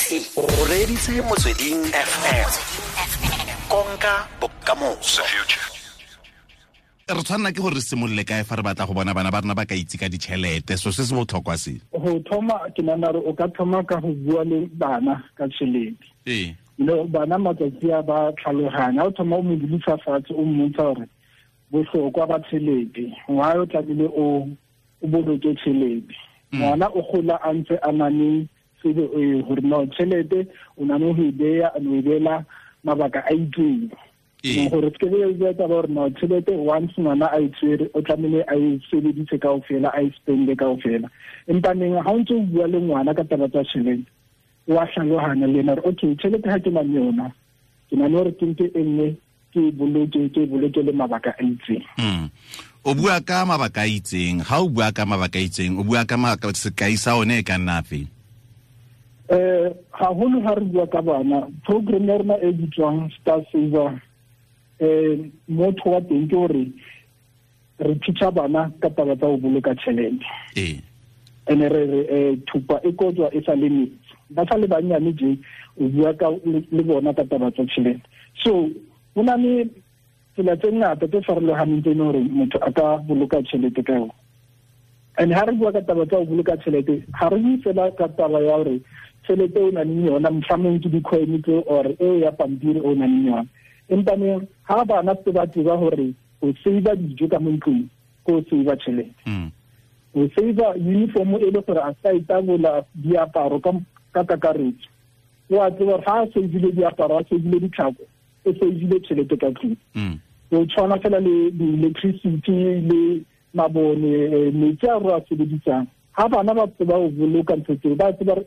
O reditse Motsweding FM. Konka bokamoso. Re tshwanela ke gore re simolole kae fa re batla go bona bana ba rona ba ka itse ka ditšhelete, so se se botlhokwa se? Go thoma, ke nagana gore o ka thoma ka go bua le bana ka tšhelete. No, bana matsatsi a ba tlhaloganya. Ha o thoma o mo dulisa fatshe, o mmontsha gore bohlokwa ba tšhelete, why o tlamehile o boloke tšhelete. Ngwana o gola a ntse a na le tsebo e gore no tšhelete o na le go e beya, o e beela mabaka a itseng. Gore se ke be taba gore no tšhelete once ngwana a e tshwere o tlamehile a e sebedise kaofela, a e spende kaofela. Empa neng ha o ntse o bua le ngwana ka taba tsa tšhelete, wa tlhaloganya le ena gore okay, tšhelete ha ke na le yona, ke na le gore ke nke e nngwe ke e boloke, ke e boloke le mabaka a itseng. O bua ka mabaka a itseng, ha o bua ka mabaka a itseng, o bua ka sekai sa one e ka nna afe? Haholo ha re bua ka bana, program ya rona e bitswang Star Saver, motho wa teng ke hore re teacha bana ka taba tsa ho boloka tjhelete. Ene re re thupa e kojwa e sa le metsi. Ba sa le banyane je, o bua ka le bona ka taba tsa tjhelete. So ho na le tsela tse ngata tse farolohaneng tse leng hore motho a ka boloka tjhelete ka yona. And ha re bua ka taba tsa ho boloka tjhelete, ha re bue fela ka taba ya hore tjhelete o nang le yona, mohlomong ke di-coin tse or eo ya pampiri o nang le yona. Empa ne ha bana se ba tseba hore o save dijo ka mo ntlong, ke o save tjhelete. O save uniform e le gore a sa itabola diaparo ka kakaretso. O a tseba hore ha a save-ile diaparo, a save-ile ditlhako, o save-ile tjhelete ka tlung. O tshwana fela le di-electricity le mabone, metsi a re a sebedisang. Ha bana ba tseba ho boloka ntho tseo, ba tseba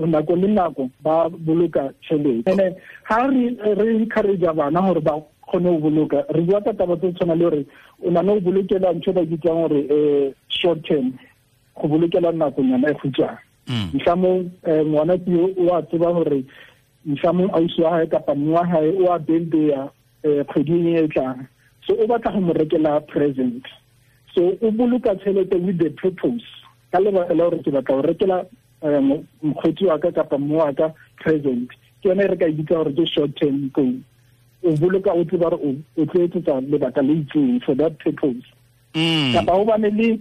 nako le nako ba boloka tjhelete. And ha re encourage bana hore ba kgone ho boloka, re bua ka taba tse tshwana le hore o na le ho bolokela ntho e ba bitsang hore short term, go bolokela nakonyana e kgutshwane. Mhlomong ngwana ke o a tseba hore mhlomong ausi wa hae kapa mme wa hae o a birthday kgweding e tlang, so o batla go mo rekela present. So o boloka tjhelete with the purpose, ka lebaka la hore ke batla ho rekela mokgotsi wa ka kapa mme wa ka present. Ke yona e re ka e bitsa hore ke short term goal. O boloka o tseba hore o tlo etsetsa lebaka le itseng for that purpose. Kapa ho bane le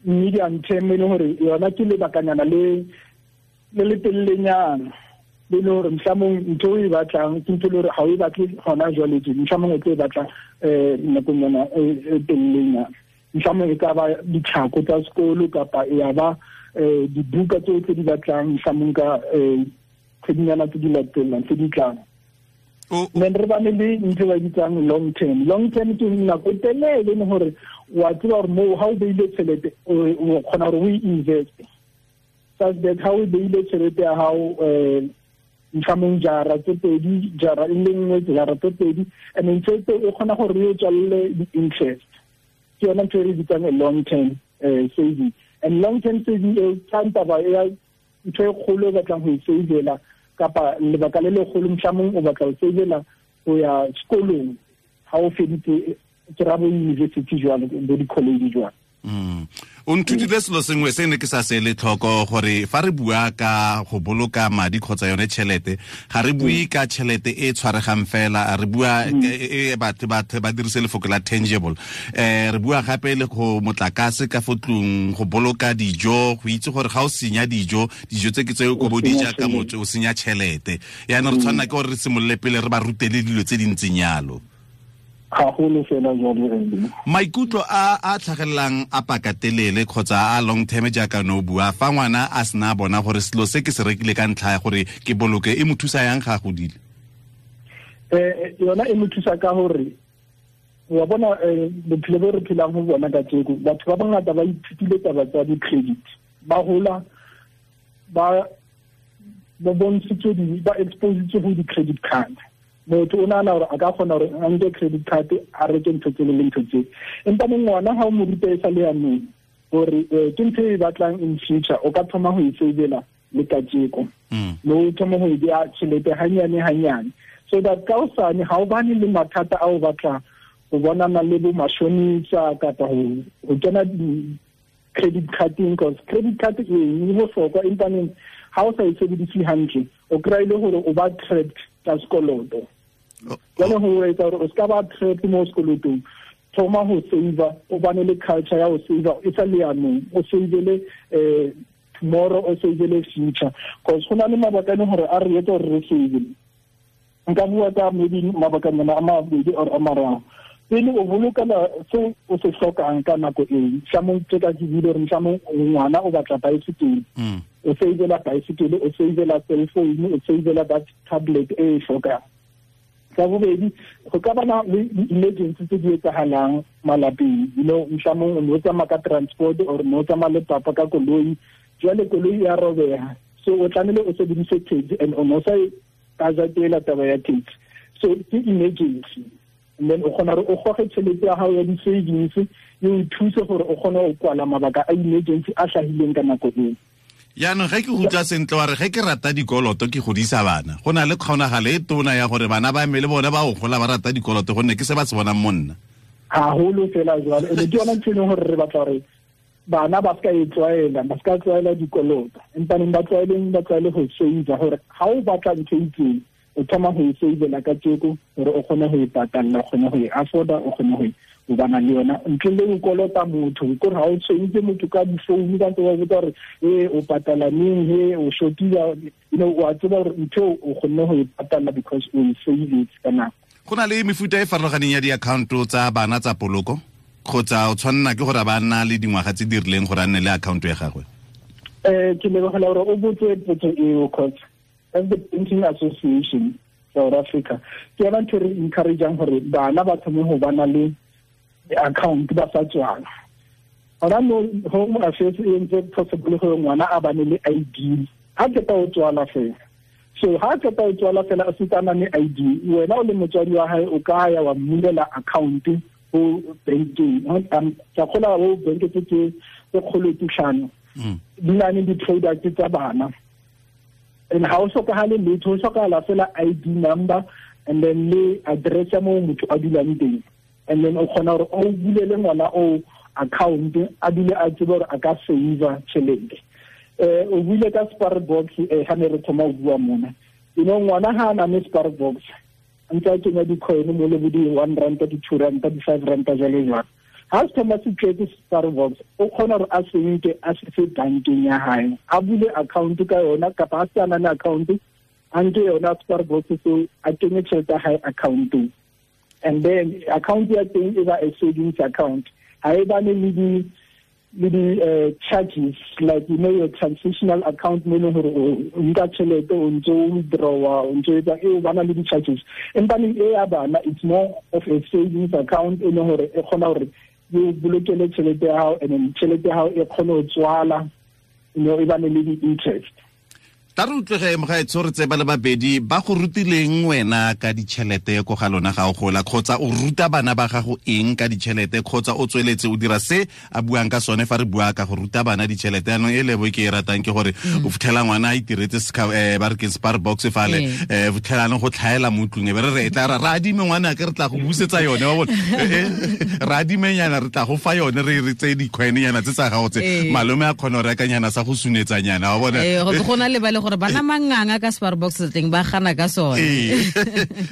medium term e leng hore yona ke lebakanyana le le telelenyana, le le hore mohlomong ntho o e batlang ke ntho e le hore ha o e batle hona jwale tje, mohlomong o tlo e batla nakong yona e telelenyana. Mohlomong e ka ba ditlhako tsa sekolo kapa ya ba dibuka tseo tse di batlang mohlomong ka kgwedinyana tse di latelang tse di tlang. Then re bane le ntho e ba bitsang long term. Long term ke nako e telele e leng hore wa tseba hore moo ha o beile tjhelete o kgona hore o e invest. Such that ha o beile tjhelete ya hao mohlomong jara tse pedi, jara e le nngwe, jara tse pedi, and then tjhelete e kgona hore e tswalle di-interest. Ke yona ntho e re bitsang a long term saving. And long term saving e tla taba ya ntho e kgolo e batlang ho e savela kapa lebaka le legolo mohlomong o batla ho savela ho ya sekolong ha o feditse ke ra bo university jwalo, bo di-college jwalo. O nthutile selo sengwe se ne ke sa se le tlhoko, gore fa re bua ka go boloka madi kgotsa yone tšhelete, ga re bue ka tšhelete e tshwaregang fela, re bua e batho ba dirise lefoko la tangible. Re bua gape le go motlakase ka fo tlung, go boloka dijo, go itse gore ga o senya dijo, dijo tse ke tse o ko di ja ka motse, o senya tšhelete. Yaanong re tshwanela ke gore re simolole pele re ba rutele dilo tse di ntseng yalo. Haholo fela jwalo re. Maikutlo a tlhagelelang a pakatelele kgotsa a long term jaaka no bua, fa ngwana a sena bona gore selo se ke se rekile ka ntlha ya gore ke boloke, e mo thusa yang ga a godile? Yona e mo thusa ka hore wa bona bophelo bo re phelang ho bona kajeko, batho ba bangata ba ithutile taba tsa di-credit, ba hola ba bontshitswe ba expositswe ho di-credit card. Motho o nahana hore a ka kgona hore a nke credit card a reke ntho tsele le ntho tsele. Empa ngwana ha o mo ruta e sa le yanong hore ke ntho e batlang in future, o ka thoma ho e savela le kajeko. Mme o thoma ho e beha tjhelete hanyane hanyane, so that ka hosane ha o bane le mathata a o batla ho bonana le bo mashonisa kapa ho kena credit carding, cause credit card e bohlokwa, empa neng Ha o sa e sebedise hantle, o kry-e le gore o ba trapped ka sekoloto. Jwale ho etsa hore o ska ba trapped mo sekolotong, thoma ho save, o bane le culture ya ho save e sa le yanong, o savele tomorrow, o savele future, because go na le mabaka a leng gore a re etsa gore re save. Nka bua ka maybe mabaka nyana a mabedi or a mararo. Pele o bolokela se o se hlokang ka nako eo, mohlomong tse ka ke buile hore mohlomong ngwana o batla bicycle, o savela bicycle, o savela cell phone, o savela that tablet e e hlokang. Sa bobedi, go ka bana le di-emergency tse di etsahalang malapeng, you know, mohlomong o no tsamaya ka transport or no tsamaya le papa ka koloi, jwale koloi ya robeha, so o tlamehile o sebedise taxi and o no sa e budgetela taba ya taxi, so ke emergency. And then o kgona gore o goge tšhelete ya gago ya di-savings e o thuse gore o kgone go kwala mabaka a emergency a hlahileng ka nako eo. Yaanong ge ke go utlwa sentle wa re ge ke rata dikoloto ke godisa bana, go na le kgonagalo e tona ya gore bana ba me le bone ba go gola ba rata dikoloto gonne ke se ba se bonang mo nna. Haholo fela jwalo, ene ke yona ntho e leng gore re batla gore bana ba ska e tlwaela, ba ska tlwaela dikoloto, empaneng ba tlwaeleng, ba tlwaele go save, gore ha o batla ntho e itseng o thoma go e savela ka tjeko gore o kgone go e patalla, o kgone go e afforda, o kgone go e o bana le yona ntle le go kolota motho. Kore ha o tshwentse motho ka difounu ka ntse wa botsa gore e o patala neng, he o shotile, you know, wa tseba gore ntho o kgonne go e patalla because o e savetse ka nako. Go na le mefuta e farologaneng ya di-account-o tsa bana tsa poloko, kgotsa o tshwanela ke gore ba nna le dingwaga tse di rileng gore a nne le account ya gagwe? Ke lebogela gore o botse potso eo, cause as the Banking Association South Africa, ke yona ntho e re encourageang gore bana ba thome go bana le account ba sa tswala. Hona no Home Affairs e entse possible gore ngwana a bane le ID ha qeta ho tswala fela. So ha qeta ho tswala fela a setse a na le ID, wena o le motswadi wa hae o ka ya wa mmulela account ho bankeng. Ke a kgolwa ho bank tse tse kgolo tse hlano di na le di-product tsa bana. And ha o hlokahale letho, ho hlokahala fela ID number and then le address ya moo motho a dulang teng. And then o kgona hore o bulele ngwana o account, a dule a tsebe hore a ka save tjhelete. O buile ka spare box ha ne re thoma ho bua mona. You know, ngwana ha a na le spare box, ntse a kenya di-coin mo le bo di-1 rand, di-2 rand, di-5 rand jwalo jwalo. Ha se thoma se tletse spare box, o kgona hore a se nke a se fe bankeng ya hae, a bule account ka yona, kapa a se a na le account, a nke yona spare box seo a kenye tjhelete ya hae accountong. And then account ya teng e ba a savings account. Ha e bane le di charges, like you know your transitional account mo leng hore o nka tjhelete o ntso o withdrawa, o ntso etsa e o bana le di-charges. Empa e ya bana, it's more of a savings account e leng hore e kgona hore e bolokele tjhelete ya hao, and then tjhelete ya hao e kgone ho tswala, you know, e bane le di-interest. Tla re utlwege mogaetsho, re tseba le babedi ba go rutileng wena ka ditšhelete ko ga lona ga o gola, kgotsa o ruta bana ba gago eng ka ditšhelete, kgotsa o tsweletse o dira se a buang ka sone fa re bua ka go ruta bana ditšhelete. Yaanong e lebo ke e ratang ke gore o fitlhela ngwana a itiretse ba re ke spare box fale, fitlhela go tlhaela mo ntlong, e be re re tla ra adime ngwana ke re tla go busetsa yone, wa bona, ra adimenyana re tla go fa yone, re re tseye di-coin-nyana tse tsa gago tse, malome a kgona go rekanyana sa go sunetsanyana, wa bona. Go na le ba le gore bana manganga ka spare box teng ba gana ka sone.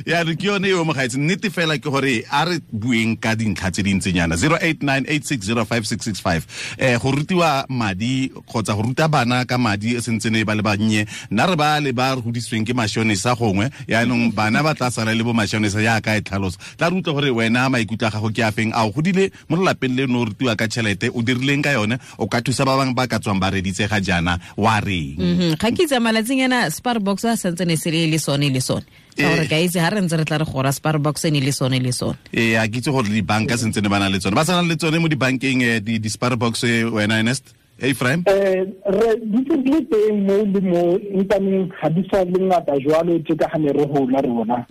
Ya re ke yone eo mogaetsi, nnete fela ke gore a re bueng ka dintlha tse dintsenyana. 0898605665 go rutiwa madi kgotsa go ruta bana ka madi e sentsene ba le bannye, nna re ba le ba re godisitsweng ke mashonisa gongwe, yaanong bana ba tla sala le bo mashonisa yaka e tlhalosa. Tla re utlwe gore wena maikutlo a gago ke a feng, a o godile mo lelapeng leno o rutiwa ka tšhelete, o dirileng ka yone, o ka thusa ba bangwe ba ka tswang ba reditse ga jaana wa reng? Ga ke itse malatsing ena spare box a santsene se le sone le sone. Ka gore ka itse ha re ntse re tla re gora spare box e ne le sone le sone. A ke itse gore dibanka sentse ne ba na le tsone. Ba sa na le tsone mo dibankeng di spare box wena Ernest? Ephraim? Re di le teng mo le mo, empaneng ga di sa le ngata jwalo tje ka ha ne re hola rona.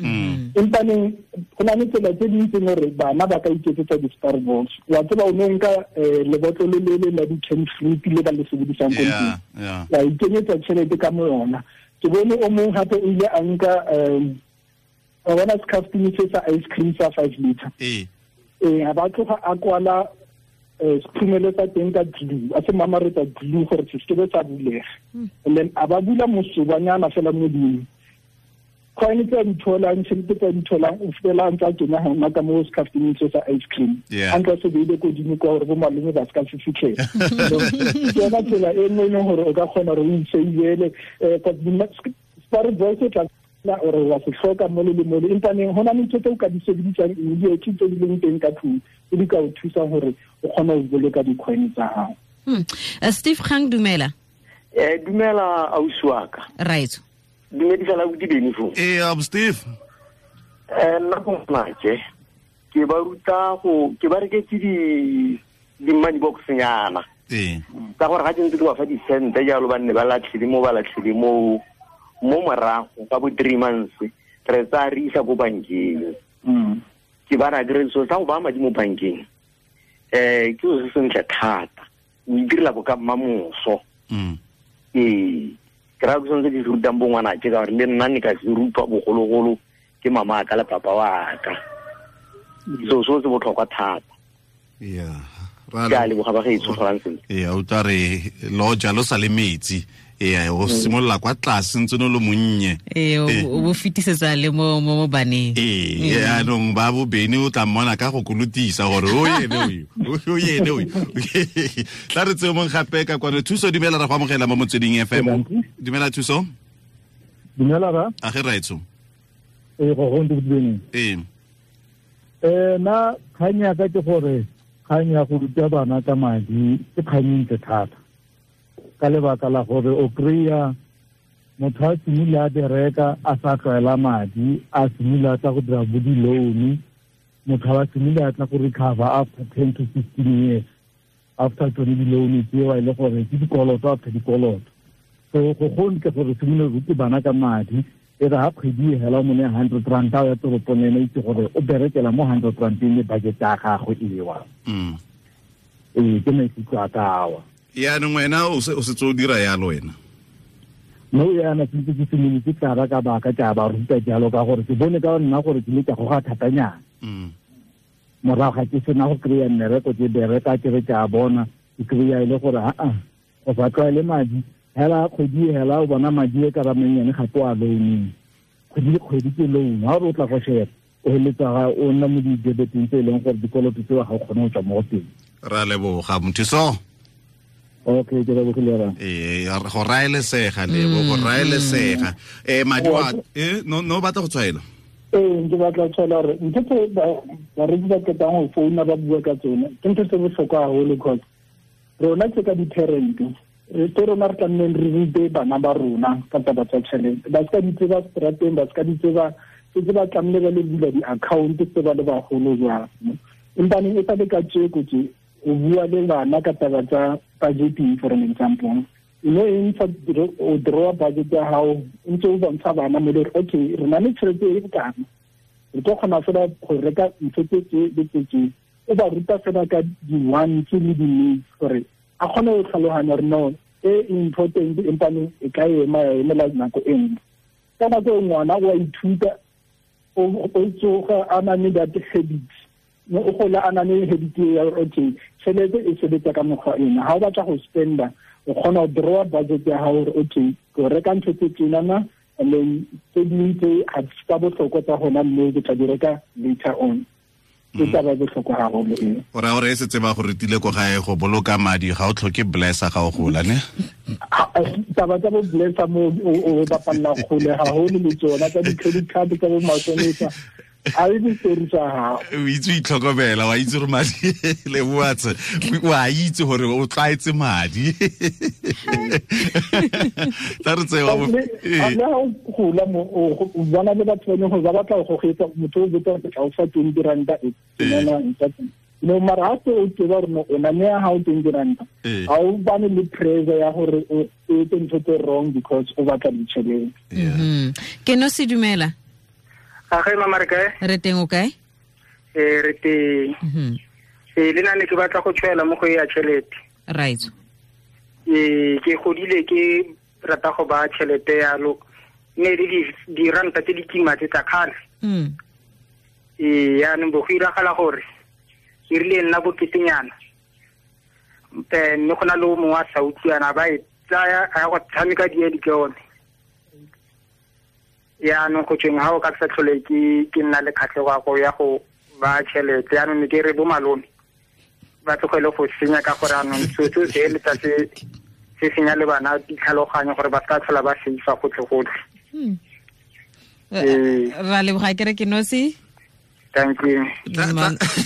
Empaneng go na le tsela tse ding tse gore bana ba ka iketsetsa di-spare box. Wa tseba o no nka lebotlolo le le la di-canned fruit le ba le sebedisang ko ntlong. Wa ikenyetsa tjhelete ka mo yona. Ke bone o mong hape o ile a nka wa bona scaftini se sa ice cream sa 5 liter. Ha ba tloga a kwala sekhurumelo sa teng ka glue, a se mamaretsa glue gore se seke sa bulega. And then a ba bula mosobanyana fela modimo. Coin tse di tholang, tšhelete tse di tholang, o fela ntse a kena hona ka mo scafteng se sa ice cream. A ntse se beile kodimo kwa gore bo malome ba ska se fitlhela. Ke yona tsela e nngwe e leng gore o ka kgona gore o itseilele spare box e tla ore wa se hloka mo le mo le empa neng hona le ntho tse o ka di sebedisang immediately tse di leng teng ka tlung tse di ka o thusang gore o kgone go boloka di-coin tsa gago. Steve Kgang, dumela. Dumela ausi wa ka. Right. Dumedisa la bodi Beni foo. Steve. Nna go ngwanake ke ba ruta go ke ba reketse di money box nyana. Ka gore ga ke ntse ke ba fa di-cent jalo ba nne ba latlhile mo ba latlhile mo mo morago ka bo 3 months re tsaya re isa ko bankeng. Ke ba ra kry so sa go baya madi mo bankeng ke so se sentle thata, o itirela bo ka mmamoso. Ke raya ke sone se ke se rutang bo ngwanake ka gore le nna ne ka se rutwa bogologolo ke mama ka le papa wa ka. So so se botlhokwa thata. Yeah. Ke a leboga ba gaetsho Francis. O tla re lo jalo sa le metsi. O simolola kwa tlase ntse no lo monnye. O bo fetisetsa le mo mo baneng. Yaanong ba bo Beni o tla mmona ka go kolotisa gore o ene o ene o. Tla re tseo mong gape ka kwano. Thuso, dumela, ra go amogela mo Motsweding FM. Dumela Thuso. Dumela ra. A ge raetso. Go go ntse Beni. Na kgang ya ka ke gore kgang ya go ruta bana ka madi ke kgang e ntle thata. Ka lebaka la gore o kry-a motho a simile a bereka a sa tlwaela madi, a simile a tla go dira bo di-loan, motho a simile a tla go recover after 10 to 15 years after tsone di-loan tseo e le gore ke dikoloto after dikoloto. So go gontle gore simile rute bana ka madi, e re ha kgwedi e hela o mo neye 100 rand a o ya toropong ene itse gore o berekela mo 100 rand le budget ya gagwe ewa. Ke maikutlo a ka awa. Yaanong wena o setse o dira yalo wena? No yana ke ntse ke simolotse ka ba ka baka ke a ba ruta jalo ka gore ke bone ka nna gore ke le ka goga thatanyana. Morago ga ke sena go kry-a mmereko ke bereka ke re ke a bona ke kry-a e le gore aa go sa tlwaele madi hela kgwedi hela o bona madi e ka ba mannyane gape o a loaneng kgwedi le kgwedi ke loan ha o re o tla go sheba o heletsa o nna mo di-debeteng tse e leng gore dikoloto tseo ga o kgone go tswa mo go teng. Ra leboga Mothuso. Okay, ke lebogile ra. Go raelesega lebo, go raelesega. Madi wa no batla go tshwaela. Ke batla go tshwaela gore ntho tse bareki ba qetang go founa ba bua ka tsone ke ntho tse bohlokwa haholo cause rona tse ka di-parent ke rona re tlamehileng re rute bana ba rona ka taba tsa tjhelete. Ba ska di tseba strateng, ba ska di tseba setse ba tlamehile ba le bula di-account tse ba le bagolo jwang. Empa neng e sa le ka tjeko tje o bua le bana ka taba tsa budgeting for an example. E ntse o draw budget ya hao ntse o bontsha bana mo le okay re na le tjhelete e bokana re tlo kgona fela go reka ntho tse tse le tse tse. O ba ruta fela ka di-wants le di-needs gore a kgone go tlhaloganya gore no e important empa e ka ema ya emela nako e nngwe. Ka nako e ngwana o a ithuta o tsoga a na le that habit o gola a na le habit ya gore okay tšhelete e sebetsa ka mokgwa ena. Ha o batla go spenda o kgona go draw budget ya hao gore okay ke reka ntho tse tsenana and then tse dingwe tse ga tsa bohlokwa tsa gona mme ke tla di reka later on. Ke taba e bohlokwa haholo eo. O raya gore e setse ba go rutile ko gae go boloka madi ga o tlhoke blesser ga o gola ne? Taba tsa bo blesser mo o bapalla kgole haholo le tsona tsa di-credit card tsa bo matšhonisa. A e story tsa hao. O itse o itlhokomela, wa itse gore madi le boatse, wa itse gore o tlwaetse madi. Tla re tsewa bo. Le ha o gola mo o bona le batho ba leng gore ba batla go gogetsa motho o botsa gore tla o fa 20 ranta e nna ntse. No mara ha o tseba gore o na ne ha o 20 ranta. Ha o bane le pressure ya gore o etse ntho tse wrong because o batla ditšhelete. Ke no se dumela. A ge mama re kae? Re teng o kae? Re teng. Le nna ne ke batla go tshwaela mo go ya tšhelete. Right. Ke godile ke rata go ba tšhelete yalo ne le diranta tse di kima tse tsa kgale. Yaanong bo go iragala gore ke rile nna boketenyana Mme go na le o mongwe a sa utlwana ba e tsaya a ya go tshameka diedi ke yone. Yaanong go tsweng ga o ka sa tlhole ke nna le kgatlhego ya go ba tšhelete. Yaanong ne ke re bo malome ba tlogele go senya ka gore anong seo se eletsa se senya le bana ditlhaloganyo gore ba se ka tlhola ba seifa gotlhe-gotlhe. Ra leboga ke re ke nosi. Thank you.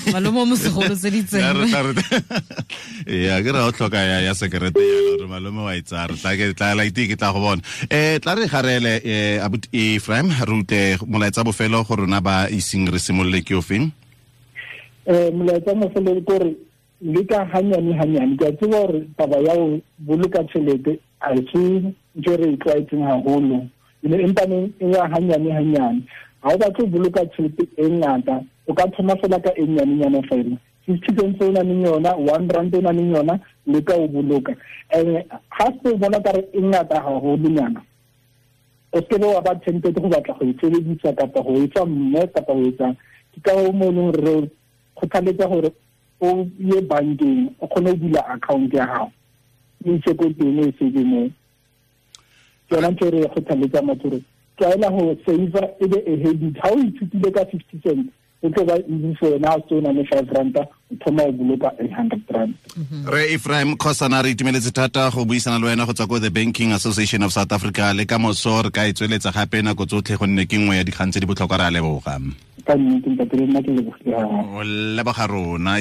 Malome o mosegolo tse di tseng. Ya ke ra o tlhoka ya sekerete ya gore malome wa itsara. Tla ke tla la ite ke tla go bona. Tla re garele abuti Ephraim re utlwe molaetsa bofelo go rona ba iseng re simolole ke ofeng. Molaetsa mofelo ke gore le ka hanyane hanyane ke a tseba gore taba ya ho boloka tjhelete a se ntho re e tlwaetseng haholo. Empa neng e ya hanyane hanyane. Ha o batle ho boloka tjhelete e ngata, o ka thoma fela ka e nyanenyana fela. 50 cents o nang le yona, 1 rand o nang le yona, le ka o boloka. And ha se bona ka re e ngata haholonyana, o se ke wa ba tempted go batla go e sebedisa kapa go etsa mme kapa go etsa. Ke ka ho mo leng re kgothaletsa gore o ye bankeng o kgone ho bula account ya hao. O itse ko teng o e save moo. Ke yona ntho e re kgothaletsa motho hore tlwaela ho save e be a habit. Ha o ithutile ka 50 cents, o tlo ba easy for wena ha o se o na le 5 ranta, o thoma ho boloka 800 rand. Re Ephraim Khosana re itumeletse thata go buisana le wena go tswa ko the Banking Association of South Africa le ka moso re ka e tsweletsa gape nako tsotlhe gonne ke nngwe ya dikgang tse di botlhokwa. Re a leboga. Ka nnete ntate le nna ke lebogile haholo. O leboga rona.